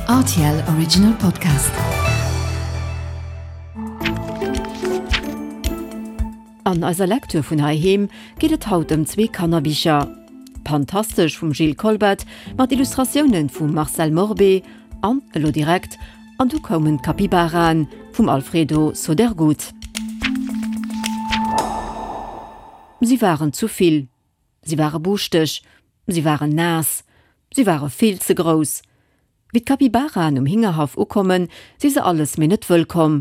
Rtl Original Podcast. An eiser Lecture vun heiheem geet et haut ëm zwee Kannerbicher, Pantastesch vum Gilles Kolbet mat Illustratiounen vum Marcel Morbé an elo direkt An du koumen d'Capybaraen vum Alfredo Sodergut. Si waren zu vill. Si ware buuschteg, si waren naass, si ware vill ze grouss. Wéi d'Capybaraen um Hingerhaff ukommen, si se alles mee net wëllkomm.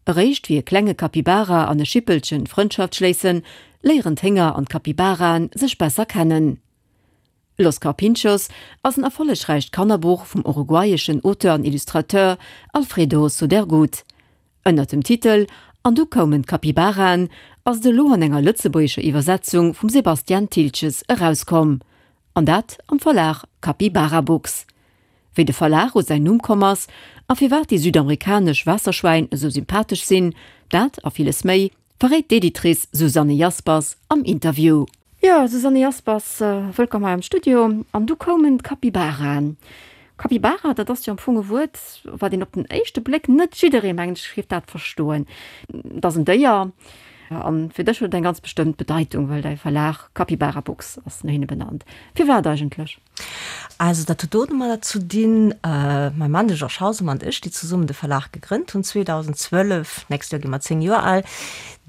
Eréischt wéi e klenge Capybara an e Schippelchen Frëndschaft schléissen, léieren d'Hénger an d'Capybaraen sech besser kennen. Los Carpinchos ass en erfollegräicht Kannerbuch vum uruguayeschen Auteur an Illustrateur Alfredo Sodergut. Ënnert dem Titel An du koumen d'Capybaraen ass et elo an enger lëtzebuergescher Iwwersetzung vum Sebastian Thiltges erauskomm. An dat am Verlag Capybara Books. Wéi de Verlag u säin Numm komm ass a firwat déi südamerikanesch Waasserschwäin esou sympathesch sinn, dat a villes méi verréit d'Editrice Susanne Jaspers am Interview. Jo, Susanne Jaspers, wëllkomm hei am Studio. An du koumen d'Capybaraen. Capybara, dat ass jo am Fong e Wuert, wat een op den éischte Bléck net jidderee, mengen ech, géif dat verstoen. Et ass en Déier a fir dech huet et eng ganz bestëmmt Bedeitung, well däi Verlag Capybara Books ass no hinne benannt. Firwat eigentlech? Also dat huet domadder ze dinn, mäi Mann, de Georges Hausemer, an ech, déi zesummen de Verlag gegrënnt hunn 2012, d'nächst Joer gi mer 10 Joer al,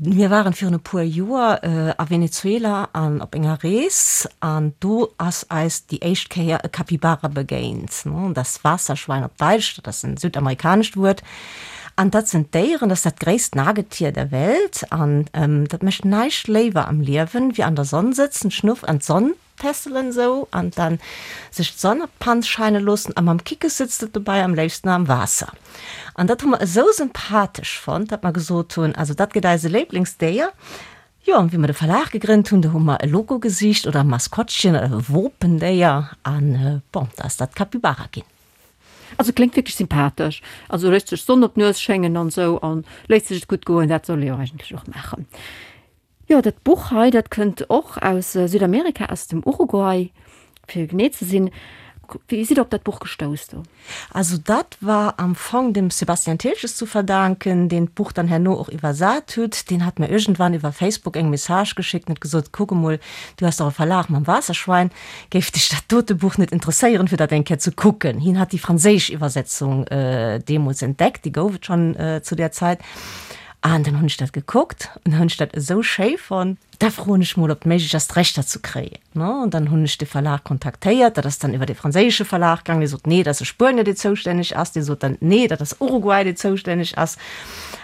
mir waren virun e puer Joer a Venezuela an op enger Rees an do ass eis déi éischt Kéier e Capybara begéint, das Wasserschwein op Daitsch, dat ass en südamerikanescht Wuert, an dat sinn Déieren, dat ass dat gréisst Nagetier der Welt an dat mécht näischt léiwer am Liewen, wéi an der Sonn sëtzen, d'Schnuff an d'Sonn Tässelen sou an dann sech d'Sonn op d'Panz scheine loossen a mam Kickes sëtzt et dobei am léifsten am Waasser. An dat hu mer esou sympathesch fonnt, dat mer gesot hunn, also dat gëtt eise Léiblingsdéier. Jo, an wéi mer de Verlag gegrënnt hunn, do hu mer e Logo gesicht oder e Maskottchen oder e Wopendéier an bon, da ass dat d'Capybara ginn. Also kléngt wierklech sympathesch. Also léisst sech d'Sonn op d'Nues schéngen an esou an léisst sech et gutt goen. Dat soll ee jo eigentlech och maachen. Jo, dat Buch hei, dat kënnt och aus Südamerika, aus dem Uruguay, fir genee ze sinn. Wéi sidd Der op dat Buch gestouss do? Also dat war am Fong dem Sebastian Thiltges zu verdanken, deen d'Buch dann herno och iwwersat huet. Deen hat mir iergendwann iwwer Facebook eng Message geschéckt an huet gesot, Kuck emol, du has dach e Verlag mam Waasserschwein, géif dech dat dote Buch net interesséieren, fir dat eng Kéier ze kucken? Hien hat déi franséisch Iwwersetzung deemools entdeckt, déi gouf et schonn zu där Zäit. An dann hunn ech dat gekuckt an dann hunn ech dat esou schéi fonnt, da froen ech mol, ob et méiglech ass, d'Rechter ze kréien. An dann hunn ech de Verlag kontaktéiert, dat ass dann iwwer e franséische Verlag gaangen, dee sot, nee, dat ass e Spuenier, dee zoustänneg ass, dee sot dann, nee, dat ass Uruguay, dee zoustänneg ass.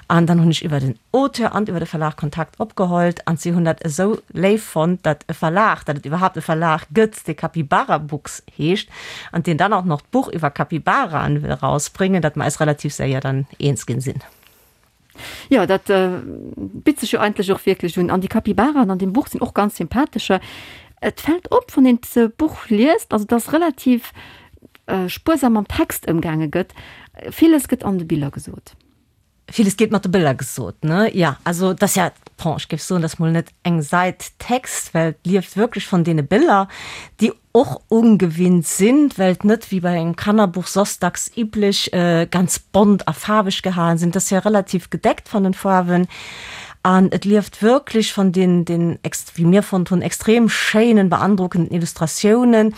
An dann hunn ech iwwer den Auteur an iwwer de Verlag Kontakt opgehollt an si hunn dat esou léif fonnt, datt e Verlag, datt et iwwerhaapt e Verlag gëtt, dee Capybara Books heescht an deen dann och nach d'Buch iwwer Capybaraen wëll erausbréngen, datt mer eis relativ séier dann eens ginn sinn. Jo, dat bitt sech jo eigentlech och wierklech un. An déi Capybaraen an deem Buch sinn och ganz sympathescher. Et fält op, wann een d'Buch liest, also dass relativ spuersam mam Text ëmgaange gëtt. Villes gëtt an de Biller gesot. Villes gétt mat de Biller gesot, ne? Jo, also et ass ja, bon, ech géif soen, et ass mol net eng Sait Text, well et lieft wierklech vun deene Biller, déi och ungewinnt sinn, well et net wéi bei engem Kannerbuch soss dacks üblech ganz bont a faarweg gehalen sinn. Et ass jo relativ gedeckt van den Faarwen an et lieft wierklech van den, den, wéi mir fonnt hunn, extrem schéinen, beandrockenden Illustratiounen,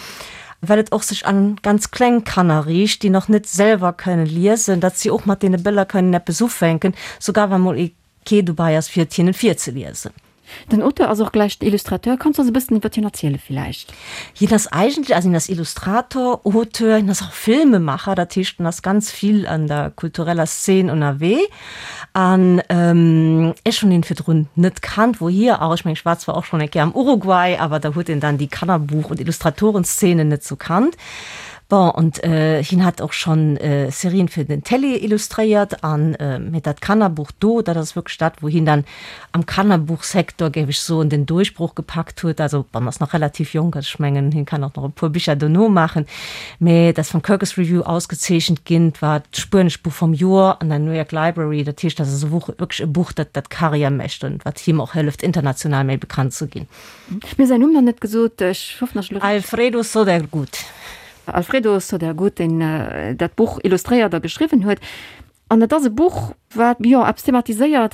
well et och sech an ganz kleng Kanner riicht, déi nach net selwer kënnen liesen, datt si och mat deene Bëller kënnen eppes ufänken, sougar wa mol ee kee dobei ass fir et hinnen virzeliesen. Den Auteur ass och gläich den Illustrateur. Kanns du eis e bëssen iwwert hien erziele villäicht? Hien ass eigentlech, also hien ass Illustrator, Auteur, hien ass och Filmemacher, dat heescht en ass ganz vill an der kultureller Szene ënnerwee. An ech hunn hien virdrun net kannt, wouhier auch, ech mengen ech war zwar och schonn eng Kéier am Uruguay, awer da huet een dann déi Kannerbuch und Illustratorenzene net sou kannt. Bon, und hien hat och schonn Serien fir den Télé illustréiert an, mee dat Kannerbuch do, dat ass wierklech dat, wou hien dann am Kannerbuchsektor, géif ech soen, den Duerchbroch gepackt huet. Also, bon, ass nach relativ jonk, also ech mengen, hien kann och nach e puer Bicher dono maachen, mee dat ass vum Kirkus Review ausgezeechent ginn, et war d'spuenescht Buch vum Joer an der New York Library. Dat heescht, dat ass e Buch, wierklech e Buch, dat dat Karriär mécht an wat him och hëlleft, international méi bekannt ze ginn. Mir hu säin Numm nach net gesot, ech hoffen, dass ech elo. Alfredo Sodergut. Alfredo Sodergut, deen dat Buch illustréiert a geschriwwen huet. An et ass e Buch, wat, jo, eppes thematiséiert,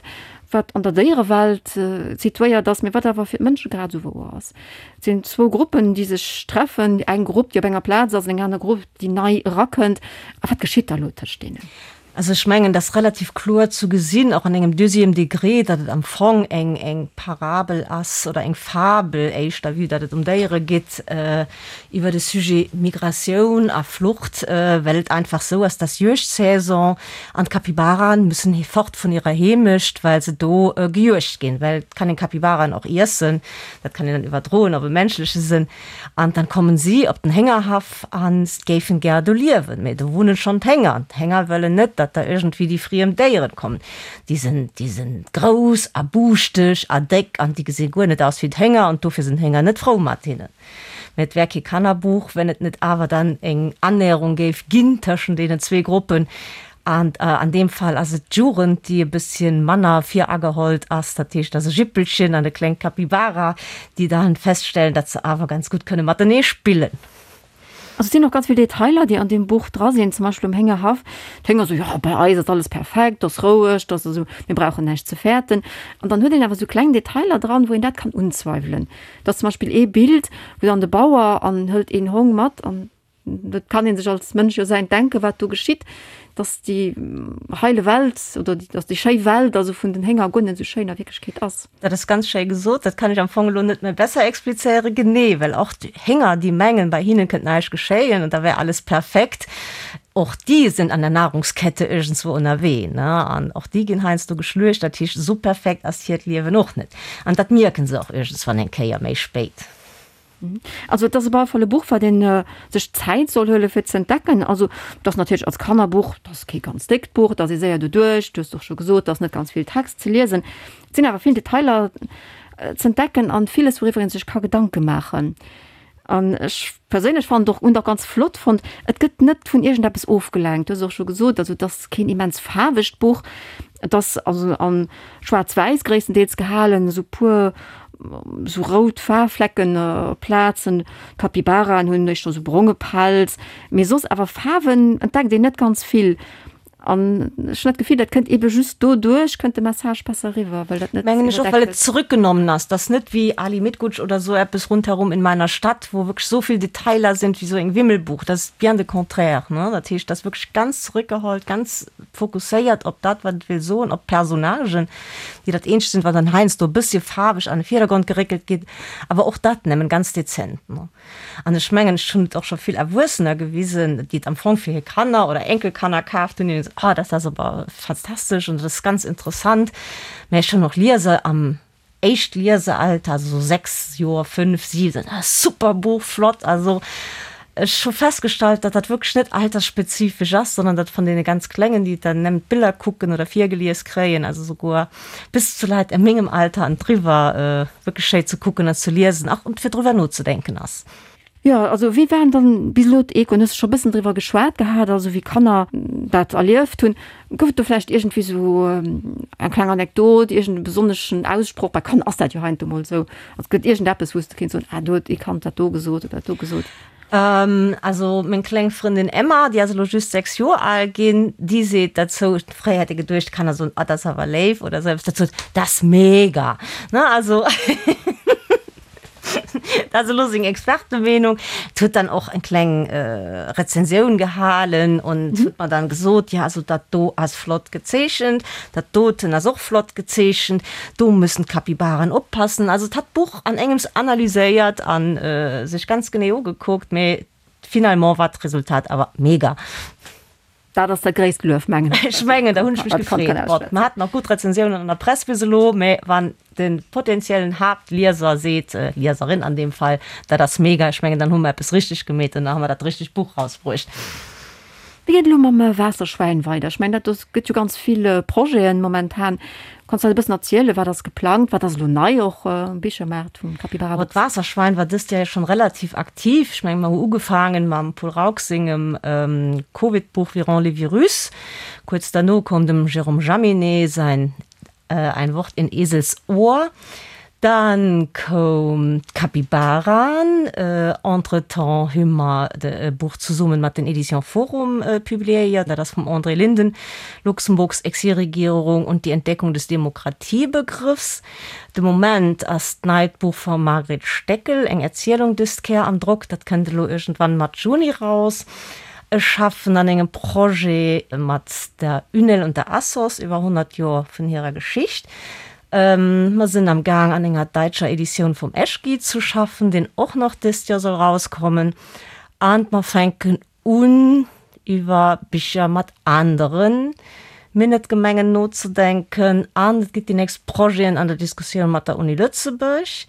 wat an der Déierewelt situéiert ass, mee wat awer fir d'Mënsche grad esou wouer ass. Et sinn zwou Gruppen, déi sech treffen, eng Grupp, déi op enger Plaz ass an eng aner Grupp, déi nei erakënnt. A wat geschitt da elo tëscht deenen? Also ech mengen, et ass relativ kloer zu gesinn, och an engem deuxième degré, datt et am Fong eng, eng Parabel ass oder eng Fabel éischter, vue datt et ëm Déiere geet, iwwer de Sujet Migratioun a Flucht, well et einfach esou ass, dass Juegdsaison an d'Capybaraen müssen fort vun hirer Heemecht, well se do gejuegt ginn, well et kann een Capybaraen och iessen, dat kann een dann iwwerdroen op e menschleche Sënn. An dann kommen si op den Héngerhaff an géifen gär do liewen, mee do wunnen schon d'Hénger an d'Hénger wëllen net, datt da iergendwéi déi friem Déieren kommen. Déi sinn, déi sinn grouss a buuschteg a déck an déi gesi guer net aus wéi d'Hénger an dofir sinn d'Hénger net frou mat hinnen. Mee et wär kee Kannerbuch, wenn et net awer dann eng Annäherung géif ginn tëschent deenen zwee Gruppen. An an deem Fall ass et d'Jugend, déi e bësschen manner viragehollt ass. Dat heescht, et ass e Jippelchen an e klengt Capybara, déi dann feststellen, datt se awer ganz gutt kënne matenee spillen. Also et sinn och ganz vill Detailer, déi an deem Buch dra sinn, zum Beispill um Héngerhaff. D'Hénger soen, jo, bei eis ass alles perfekt, et ass roueg, et ass esou, mir brauchen näischt ze fäerten. An dann huet een awer esou kleng Detailer dran, wou een dat kann unzweiwelen. Et ass zum Beispill ee Bild, wou dann de Bauer an hëlt een Hong mat an Et kann ee sech als Mënsch jo säint denken, wat do geschitt, dass déi heile Welt oder dass déi schéi Welt also vun den Hénger guer net esou schéin a Wierklechkeet ass. Dat ass ganz schéi gesot. Dat kann ech am Fong elo net méi besser explizéieren. Genee, well och d'Hénger, déi mengen, bei hinnen kënnt näischt geschéien an da wär alles perfekt, och déi sinn an der Nahrungskette iergendswou ënnerwee, ne? An och déi ginn heiansdo geschluecht. Dat heescht, esou perfekt ass hiert Liewen och net. An dat mierken se och iergendswann eng Kéier méi spéit. Also et ass op alle Fall e Buch, wat ee sech Zäit soll huele fir ze entdecken. Also et ass natierlech als Kannerbuch, et ass kee ganz déckt Buch, et ass ee séier doduerch, du hues och scho gesot, et ass net ganz vill Text ze liesen. Et sinn awer vill Detailer ze entdecken an villes, wouriwwer ee sech ka Gedanke maachen. An ech perséinlech fannen et och, hunn et och ganz flott fonnt, et gëtt net vun iergendeppes ofgelenkt. Du hues och scho gesot, also et ass keen immens faarwegt Buch, et ass also an schwaarz-wäiss gréisstendeels gehalen, esou puer esou rout Faarflecken op Plazen, Capybaraen hunn éischter esou bronge Pelz, mee soss awer Faarwen entdeckt een net ganz vill. An ech hunn dat Gefill, dat kënnt eebe just doduerch, kënnt de Message besser eriwwer, well dat net Mengen ech och, well et zurückgenommen ass. Dat ass net wéi Ali Mitgutsch oder esou eppes Rundherum in meiner Stadt, wou wierklech esou vill Detailer sinn, wéi esou eng Wimmelbuch. Dat ass bien de contraire, ne? Dat heescht, dat ass wierklech ganz zurückgeholt, ganz fokusséiert op dat, wat et wéll soen, op d'Personnagen, déi dat eenzegt sinn, wat dann heiansdo e bëssche faarweg an de Virdergrond geréckelt ginn, awer och dat nëmmen ganz dezent. An ech mengen, ech hunn et och scho vill Erwuessener gewisen, déi et am Fong fir hir Kanner oder Enkelkanner kaaft hunn, déi hunn gesot, Oh, dat ass awer fantastesch an dat ass ganz interessant. Mä ech hunn och Lieser am Éischt-Liesealter, also sou 6 Joer, 5, 7, ah super Buch, flott. Also ech hu festgestallt, datt dat wierklech net altersspezifesch ass, sondern datt vun deene ganz Klengen, déi dann nëmmen d'Biller kucken oder virgelies kréien, also souguer bis zu Leit a mengem Alter an driwwer, wierklech schéi ze kucken an ze liesen, ach und fir driwwer nozedenken ass. Jo, also wéi waren dann bis elo d'Echoen? Hues de scho bëssen driwwer geschwat gehat, also wéi Kanner dat erlieft hunn. Gouf et do vläicht iergendwéi sou eng kleng Anekdot, iergend e besonneschen Aussproch? Bei Kanner ass dat jo heiansdo mol esou. Also gëtt iergendeppes, wou s de kéints soen, ah do huet ee Kand dat do gesot oder dat do gesot. Also meng kleng Frëndin Emma, déi ass elo just 6 Joer al ginn, déi seet derzou, fréier hätt ee geduecht, d'Kanner soen, ah dat ass awer léif oder esou eppes, dat sot, dat ass mega, ne, also. Dat ass elo seng Expertemeenung. Et huet dann och eng kleng Rezensioun gehalen und huet mer dann gesot, jo also dat do ass flott gezeechent, dat doten ass och flott gezeechent, do müssen d'Capybaren oppassen. Also et hat d'Buch an engems analyséiert a sech ganz genee ugekuckt, mee finalement war d'Resultat awer mega. Dat ass dat gréisst Luef, mengen ech. Ech mengen, da hunn ech mech gefreet. Bon, mer haten och gutt Rezensiounen an der Press bis elo, mä wann de potenziellen Haaptlieser seet, Lieserin an deem Fall, dat ass mega, ech mengen, dann hu mer eppes richteg gemeet an da hu mer dat richtegt Buch rausbruecht. Wéi geet et elo mam Waasserschwäin weider? Ech mengen, dat do gëtt jo ganz vill Projeten momentan. Kanns du eis e bëssen erzielen, wat ass geplangt, wat ass elo nei och um Bichermaart vum Capybara Books? D'Waasserschwein war dëst Joer jo schonn relativ aktiv. Ech mengen, mer hu ugefaangen mam Paul Rauch sengem Covid-Buch Virons les virus. Kuerz derno koum dem Jérôme Jaminet säin Ein Wort in Esels Ohr. Dann koum d'Kapibaraen. Entretemps hu mer e Buch zesummen mat den Éditions Forum publiéiert, dat ass vum André Linden, Luxemburgs Exilregierung und die Entdeckung des Demokratiebegriffs. De Moment ass d'neit Buch vum Margret Steckel, eng Erzielung dëst Kéier am Drock, dat kënnt elo iergendwann Matt Juni raus. Ech schaffen an engem Projet mat der UNEL und der ASSOS iwwer 100 Joer vun hirer Geschicht. Mer sinn am Gaang an enger däitscher Editioun vum Eschki ze schaffen, deen och nach dëst Joer soll rauskommen. An mer fänken un iwwer Bicher mat anere Minett-Gemengen nozedenken. An et gitt déi nächst Projeten an der Diskussioun mat der Uni Lëtzebuerg.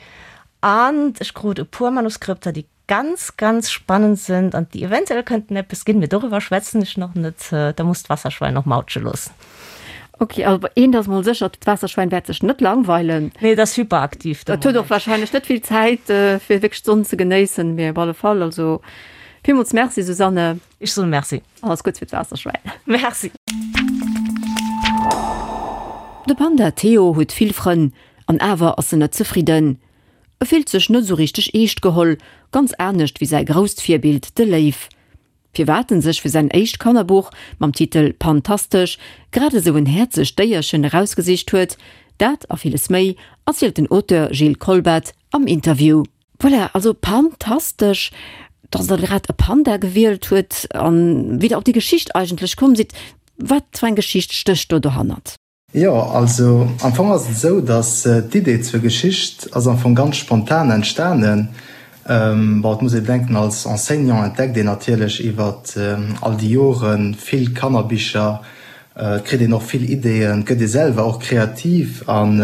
An ech krut e puer Manuskripter, déi ganz, ganz spannend sind an déi eventuell könnten eppes ginn, mee doriwwer schwätzen ech nach net, da muss d'Wasserschwein och mautsche loossen. Ok, also eent ass mol sécher, d'Waasserschwein wäert sech net langweilen. Nee, et ass hyperaktiv de Moment. Et huet och wahrscheinlech net vill Zäit, fir wierklech d'Sonn ze genéissen, mee op alle Fall, also villmools Merci Susanne. Ech soen Merci. Alles Gutts fir d'Waasserschwein. Merci. De Panda Theo huet vill Frënn, an awer ass en net zefridden. E fillt sech net esou richteg eescht geholl, ganz anescht wéi säi grousst Virbild, de Léiw. Firwat en sech fir säin éischt Kannerbuch mam Titel Pantastesch grad esou en häerzegt Déierchen erausgesicht huet, dat a villes méi erzielt den Auteur Gilles Kolbat am Interview. Voilà, also Pantastesch, dass der grad e Panda gewielt huet an wéi der op déi Geschicht eigentlech komm sidd. Wat fir eng Geschicht stécht do dohannert? Jo, also am Fong ass et esou, datt d'Idee zur Geschicht ass am Fong ganz spontan entstanen. Bon, et muss ee bedenken, als Enseignant entdeckt een natierlech iwwer all déi Jore vill Kannerbicher, et kritt een och vill Ideeën, et gëtt ee selwer och kreativ an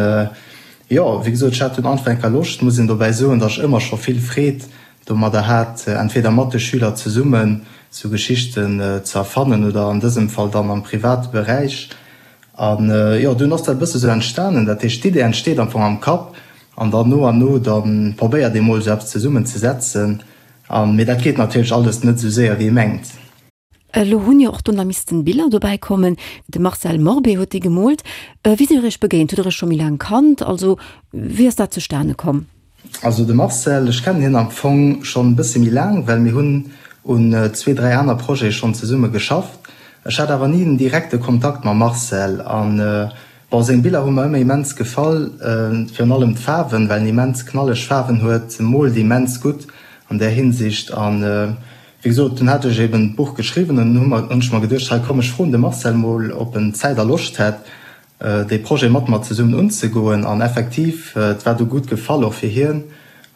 jo, wéi gesot, ech hat dunn einfach eng Kéier Loscht, muss een dobäi soen, datt ech ëmmer scho vill Freed domadder hat, entweder mat de Schüler zesummen sou Geschichten ze erfannen oder an dësem Fall dann am private Beräich. An jo, dunn ass dat e bësse sou entstanen. Dat heescht, d'Idee entsteet am Fong am Kapp an dann no an no da probéiert ee mol sou eppes zesummen ze setzen. An, mee dat geet natierlech alles net sou séier wéi ee mengt. Elo hunn jo och do nach missten Biller dobäi kommen. De Marcel Morbé huet déi gemoolt. Wéi sidd der iech begéint? Hutt der iech scho méi laang kannt? Also wéi ass dat zustane komm? Also de Marcel, ech kennen hien am Fong schonn e bësse méi laang, well mir hunn un zwee, dräi aner Projete schonn zesumme geschafft. Ech hat awer ni den direkte Kontakt mam Marcel an, bon, seng Biller hu mer ëmmer immens gefall, virun allem d'Faarwen, well en immens knalleg Faarwen huet, moolt immens gutt an där Hinsicht an, wéi gesot, dunn hat ech eben d'Buch geschriwwen an dunn hunn ech mer geduecht, hei komm, ech froen de Marcel mol, ob en Zäit a Loscht hätt, dee Projet mat mer zesummen unzegoen an effektiv, et war du gutt gefall och fir hien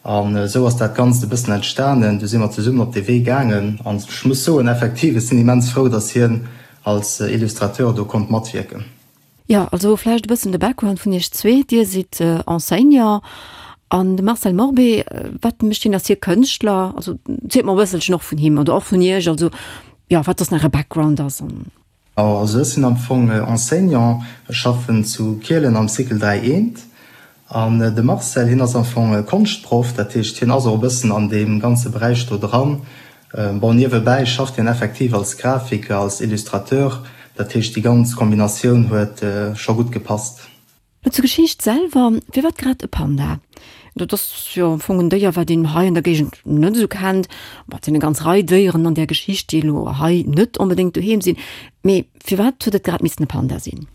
an esou ass dat Ganzt e bëssen entstanen. Du si mer zesummen op dee Wee gaangen an ech muss soen, effektiv, ech sinn immens frou, datt hien als Illustrateur do konnt matwierken. Jo, also vläicht e bëssen de Background vun iech zwee. Dir sidd Enseignant an de Marcel Morbé, wat mécht hien? Ass hie Kënschtler? Also zielt mer e bësselchen och vun him oder och vun iech, also jo, wat soss nach äre Background ass an. Also ech sinn am Fong Enseignant, ech schaffen zu Kielen am Cycle 3 eent. An de Marcel, hien ass am Fong Konschtproff, dat heescht hien ass och e bëssen an deem ganze Beräich do dran. Bon, niewebäi schafft hien effektiv als Grafiker, als Illustrateur, dat heescht déi ganz Kombinatioun huet scho gutt gepasst. Lo zur Geschicht selwer, Firwat grad e Panda? Dat ass jo am Fong en Déier, wat een hei an der Géigend net esou kennt. Bon, et sinn eng ganz Rei Déieren an där Geschicht, déi elo hei net onbedéngt doheem sinn. Mee firwat huet et grad missen e Panda sinn?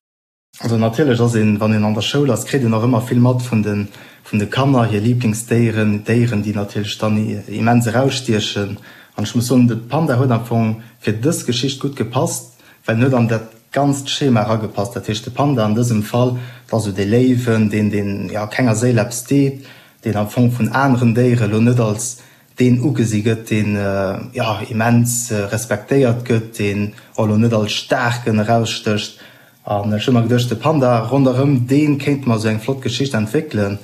Also natierlech ass een, wann een an der Schoul ass, kritt een och ëmmer vill mat vun de vun de Kanner, hir Liblingsdéieren, Déieren, déi natierlech dann immens erausstiechen. An ech muss soen, de Panda huet am Fong fir dës Geschicht gutt gepasst, well en huet an dat ganzt Schema eragepasst. Dat heescht, de Panda an dësem Fall, dat ass esou dee Léiwen, deen, deen, jo, kenger Séil eppes deet, deen am Fong vun aneren Déiere lo net als deen ugesi gëtt, deen, jo, immens respektéiert gëtt, deen och lo net als Staarken erausstécht. An ech hu mer geduecht, de Panda, ronderëm dee kéinte mer esou eng flott Geschicht entwéckelen.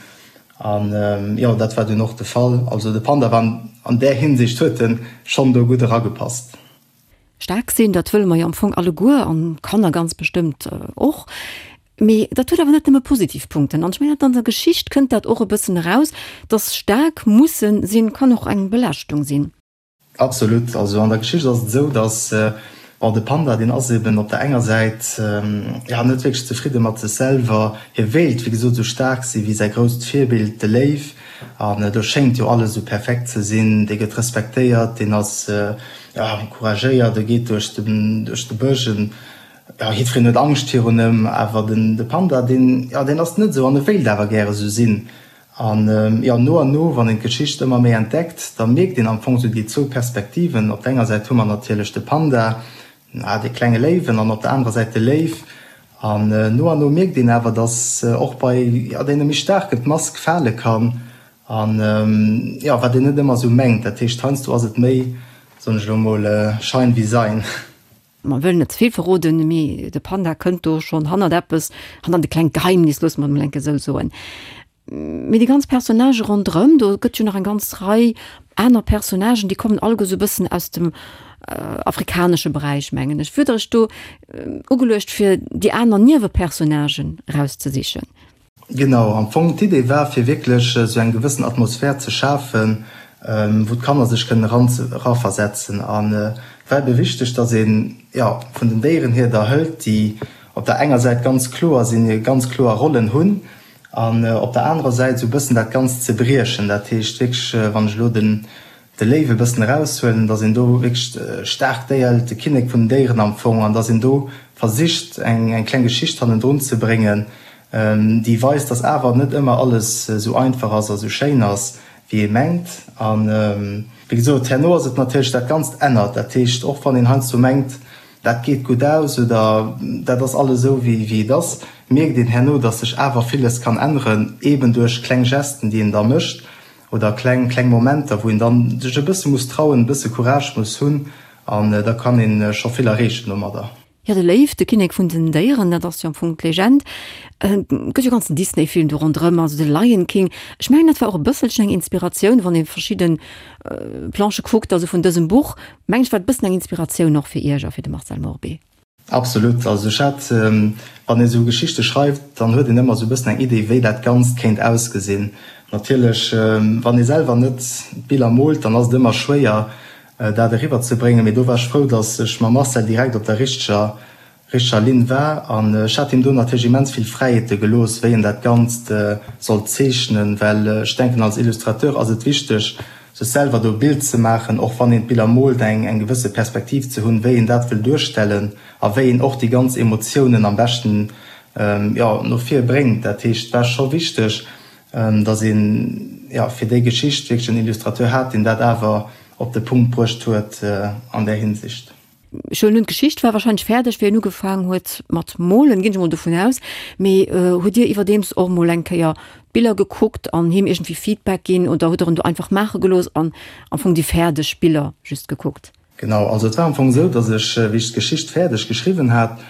An, jo, dat war dunn och de Fall. Also de Panda war an där Hinsicht huet en schonn do gutt eragepasst. Staark sinn, dat wëlle mer jo am Fong alleguer an d'Kanner ganz bestëmmt och. Mee dat huet awer net nëmme positiv Punkten. An ech mengen, an der Geschicht kënnt dat och e bëssen eraus, dass staark musse sinn, kann och eng Belaaschtung sinn. Absolut. Also an der Geschicht ass et esou, dass. Bon, de Panda, deen ass eben op der enger Säit, jo, net wierklech zefridde mat sech selwer. Hie wéilt, wéi gesot, esou staark si wéi säi grousst Virbild, de Léiw. An do schéngt jo alles esou perfekt ze sinn. Dee gëtt respektéiert, deen ass, jo, couragéiert, e geet duerch de, duerch de Bësch, en, jo, jiddwereen huet Angscht virun ëm. Awer den, de Panda, deen, jo, deen ass net esou an e wéilt awer gäre esou sinn. An jo, no an no, wann een d'Geschicht ëmmer méi entdeckt, da mierkt een am Fong esou déi zwou Perspektiven. Op der enger Säit hu mer natierlech de Panda, dee klenge Léiwen, an op der anerer Säit de Léiw. An no an no mierkt een awer, dass och bei, jo, deene méi Staarken d'Mask fale kann. An jo, wat een net ëmmer esou mengt. Dat heescht, heiansdo ass et méi, soen ech elo mol, Schein wie Sein. Mer wëllen net ze vill verroden, mee de Panda kënnt do schonn hannert eppes, hannert e klengt Geheimnis, loosse mer et mol enke sou soen. Mee déi ganz Personnagë ronderëm, do gëtt jo nach eng ganz Rei aner Personnagen, déi kommen alleguer sou e bëssen aus dem afrikanesche Beräich, mengen ech. Wier der Iech do ugeluecht, fir déi aner Niewepersonnagen erauszesichen? Genau, am Fong d'Idee war fir wierklech esou eng gewëssen Atmosphär ze schafen, wou d'Kanner sech kënnen eran eraversetzen. An et war ebe wichteg, datt een, jo, vun den Déieren hier der hëlt, déi op der enger Säit ganz kloer sinn, hir ganz kloer Rollen hunn, an op der anerer Säit esou e bëssen dat Ganzt ze briechen. Dat heescht wierklech, wann ech elo den de Léiw e bëssen eraushuelen, dass een do wierklech staark Déier hëlt, de Kinnek vun den Déieren am Fong, an dass een do versicht eng eng kleng Geschicht hannendrun ze bréngen, déi weist, dass awer net ëmmer alles esou einfach ass a sou schéin ass, wéi ee mengt. A wéi gesot, herno ass et natierlech, dat Ganzt ännert. Dat heescht, och wann een heiansdo mengt, dat geet gutt aus oder dat ass alles esou, wéi wéi et ass, mierkt een herno, dass sech awer villes kann änneren, eeben duerch kleng Gesten, déi een da mécht. Oder kleng, kleng Momenter, wou een dann sech e bësse muss trauen, e bësse Courage muss hunn an da kann een scho vill erreechen domadder. Jo, de Léiw, de Kinnek vun den Déieren, dat ass jo am Fong d'Legend. Et gëtt jo e ganzen Disney-Film do ronderëm, also de Lion King. Ech mengen, dat war och e bësselchen eng Inspiratioun, wann ee verschidde Planchë kuckt, also vun dësem Buch, mengen ech, war et e bëssen eng Inspiratioun och fir Iech a fir de Marcel Morbé. Absolut. Also ech hat, wann ee sou Geschichte schreift, dann huet een ëmmer sou e bëssen eng Idee, wéi dat Ganzt kéint ausgesinn. Natierlech, wann ee selwer net d'Biller moolt, dann ass et ëmmer schwéier, dat eriwwer ze bréngen. Mee do war ech frou, datt ech mam Marcel direkt op der richteger, richteger Linn war. An ech hat him do natierlech immens vill Fräiheete gelooss, wéi en dat Ganzt sollt zeechnen, well ech denken, als Illustrateur ass et wichteg, sech selwer do e Bild ze maachen, och wann een d'Biller moolt, eng eng gewësse Perspektiv ze hunn, wéi een dat wëll duerstellen a wéi een och déi ganz Emotiounen am beschten, jo, no vir bréngt. Dat heescht, et war scho wichteg, datt een, jo, fir déi Geschicht wierklech en Illustrateur hat, deen dat awer op de Punkt bruecht huet an där Hinsicht. Ech huelen un, d'Geschicht war wahrscheinlech fäerdeg, wéi en ugefaang huet mat molen, ginn ech emol dovun aus. Mee hutt Dir iwwerdeems och emol eng Kéier d'Biller gekuckt an him iergendwéi Feedback ginn oder hutt Der en do einfach maache gelooss an am Fong déi fäerdeg Biller just gekuckt? Genau, also et war am Fong esou, datt ech, wéi ech d'Geschicht fäerdeg geschriwwen hat,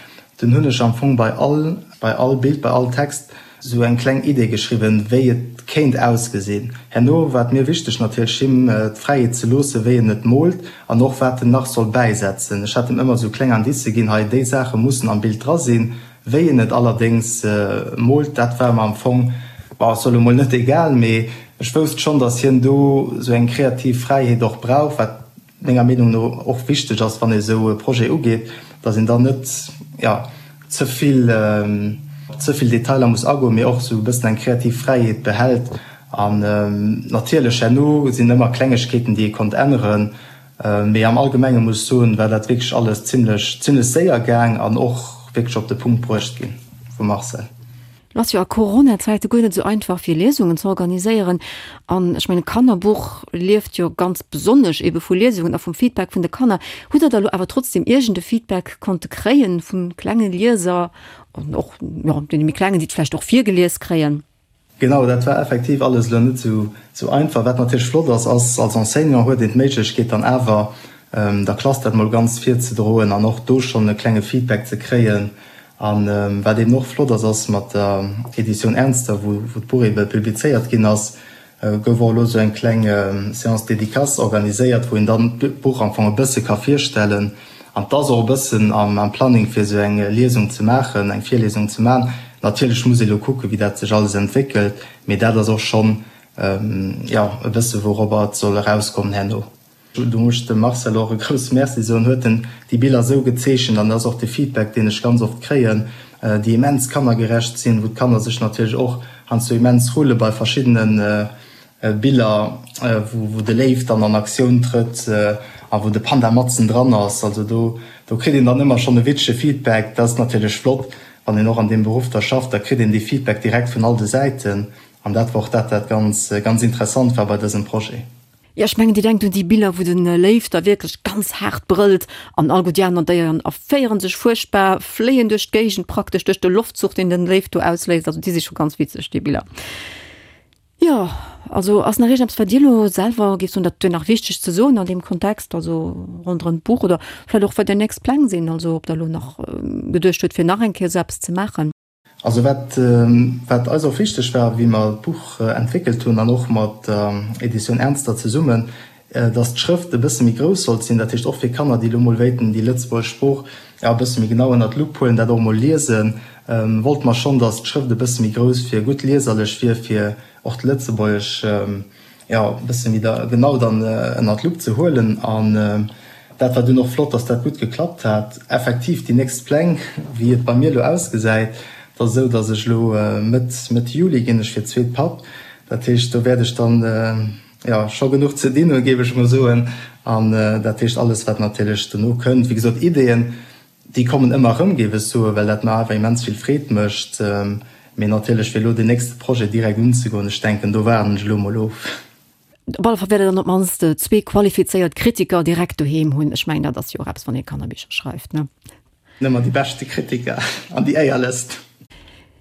dunn hunn ech am Fong bei all, bei all Bild, bei all Text Sou eng kleng Idee geschriwwen, wéi et kéint ausgesinn. Herno war et mir wichteg natierlech him d'Fräiheet ze loossen, wéi en et moolt an och wat en nach soll bäisetzen. Ech hat him ëmmer sou kleng Indicë ginn, hei déi Saache mussen am Bild dra sinn. Wéi en et allerdéngs moolt, dat war mer am Fong, bon, ech soe lo mol net egal, mee ech wousst schonn, dass hien do sou eng kreativ Fräiheet och brauch, wat menger Meenung no och wichteg ass, wann ee esou e Projet ugeet, datt een dann net, jo, ze vill, op ze vill Detailer muss agoen, mee och esou e bëssen eng kreativ Fräiheet behält. An natierlech herno sinn ëmmer Klengegkeeten, déi ee konnt änneren, mee am Allgemenge muss ech soen, war dat wierklech alles zimlech, zimlech séier gaang an och wierklech op de Punkt bruecht ginn vum Marcel. Et ass jo a Corona-Zäite guer net esou einfach fir Liesungen ze organiséieren. An ech mengen, d'Kannerbuch lieft jo ganz besonnesch ebe vu Liesungen a vum Feedback vun de Kanner. Hutt Der da lo awer trotzdem iergend e Feedback konnte kréien vu klenge Lieser an och, jo, deene méi klengen, déi et vläicht och virgelies kréien? Genau, dat war effektiv alles elo net esou einfach. Wat natierlech flott ass, ass, als Enseignant huet een d'Méiglechkeet dann awer der Klass dat mol ganz virzedroen an och do schonn e klenge Feedback ze kréien. A wat eben och flott ass, ass mat der Editioun Ernster, wou d'Buch ebe publizéiert ginn ass, gouf och elo esou eng kleng Séance dédicace organiséiert, wou een dann d'Buch am Fong e bësse ka virstellen. An 't ass och e bëssen am Planning, fir esou eng Liesung ze maachen, eng Virliesung ze maachen. Natierlech muss ee elo kucken, wéi dat sech alles entwéckelt, mee dat ass och schonn, jo, e bësse wouropper et soll erauskommen herno. Do muss ech dem Marcel och e grousse Merci soen, huet en déi Biller esou gezeechent an dat ass och de Feedback, deen ech ganz oft kréien, déi immens kannergerecht sinn, wou d'Kanner sech natierlech och heiansdo immens rulle bei verschiddene Biller, wou de Léiw dann an Aktioun trëtt a wou de Panda matzen dran ass. Also do do kritt een dann ëmmer schonn e witzege Feedback. Dat ass natierlech flott, wann een och an deem Beruff da schafft, da kritt een dee Feedback direkt vun all de Säiten an dat war och dat, wat ganz ganz interessant war bei dësem Projet. Jo, ech mengen, Dir denkt un déi Biller, wou de Léiw da wierklech ganz haart brëllt an all gutt déi aner Déieren erféiere sech fuerchtbar, fléien duerch d'Géigend, praktesch duerch de Loftzuch, deen den Léiw do ausléist. Also déi si scho ganz witzeg, déi Biller. Jo, also ass nach iergendeppes, wat Dir elo selwer géift soen, dat wier nach wichteg ze soen an deem Kontext, also ronderëm d'Buch oder vläicht och wat Är nächst Pläng sinn, also ob Der elo nach geduecht hutt, fir nach eng Kéier esou eppes ze maachen? Also wat wat eis och wichteg war, wéi mer d'Buch entwéckelt hunn an och mat der Edition Ernster zesummen, dass d'Schrëft e bësse méi grouss sollt sinn, dat heescht och fir Kanner, déi elo mol wéilten déi lëtzebuergesch Sprooch e bësse méi genau ënnert d'Lupp huelen, dat och mol liesen, wollte mer schonn, dass d'Schrëft e bësse méi grouss fir gutt lieserlech wier, fir och d'Lëtzebuergesch jo, e bësse méi da genau dann ënnert d'Lupp ze huelen. An dat war dunn och flott, dass dat gutt geklappt hat. Effektiv, déi nächst Pläng, wéi et bei mir elo ausgesäit, dat ass esou, dass ech elo Mëtt, Mëtt Juli ginn ech fir d'zweet Papp. Dat heescht, do wäert ech dann, jo, scho genuch ze dinn hunn, géif ech emol soen. An dat heescht, alles, wat natierlech dono kënnt, wéi gesot, Ideeën, Déi kommen ëmmer erëm, géif ech soen, well dat mer awer immens vill Freed mécht. Mee natierlech, fir elo deen nächste Projet direkt unzegoen, ech denken, do waarden ech elo emol of. Op alle Fall wäert Der dann op d'mannst zwee qualifizéiert Kritiker direkt doheem hunn. Ech mengen, dat ass jo och eppes, wann ee Kannerbicher schreift, ne? Nëmmer déi beschte Kritiker an déi éierlechst.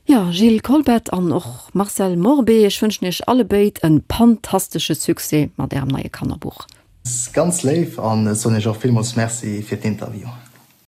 Jo, Gilles Kolbeth an och Marcel Morbé, ech wënschen Iech allebéid e pantastesche Succès mat Ärem neie Kannerbuch. Ganz léif an ech soen Iech och villmools Merci fir d'Interview.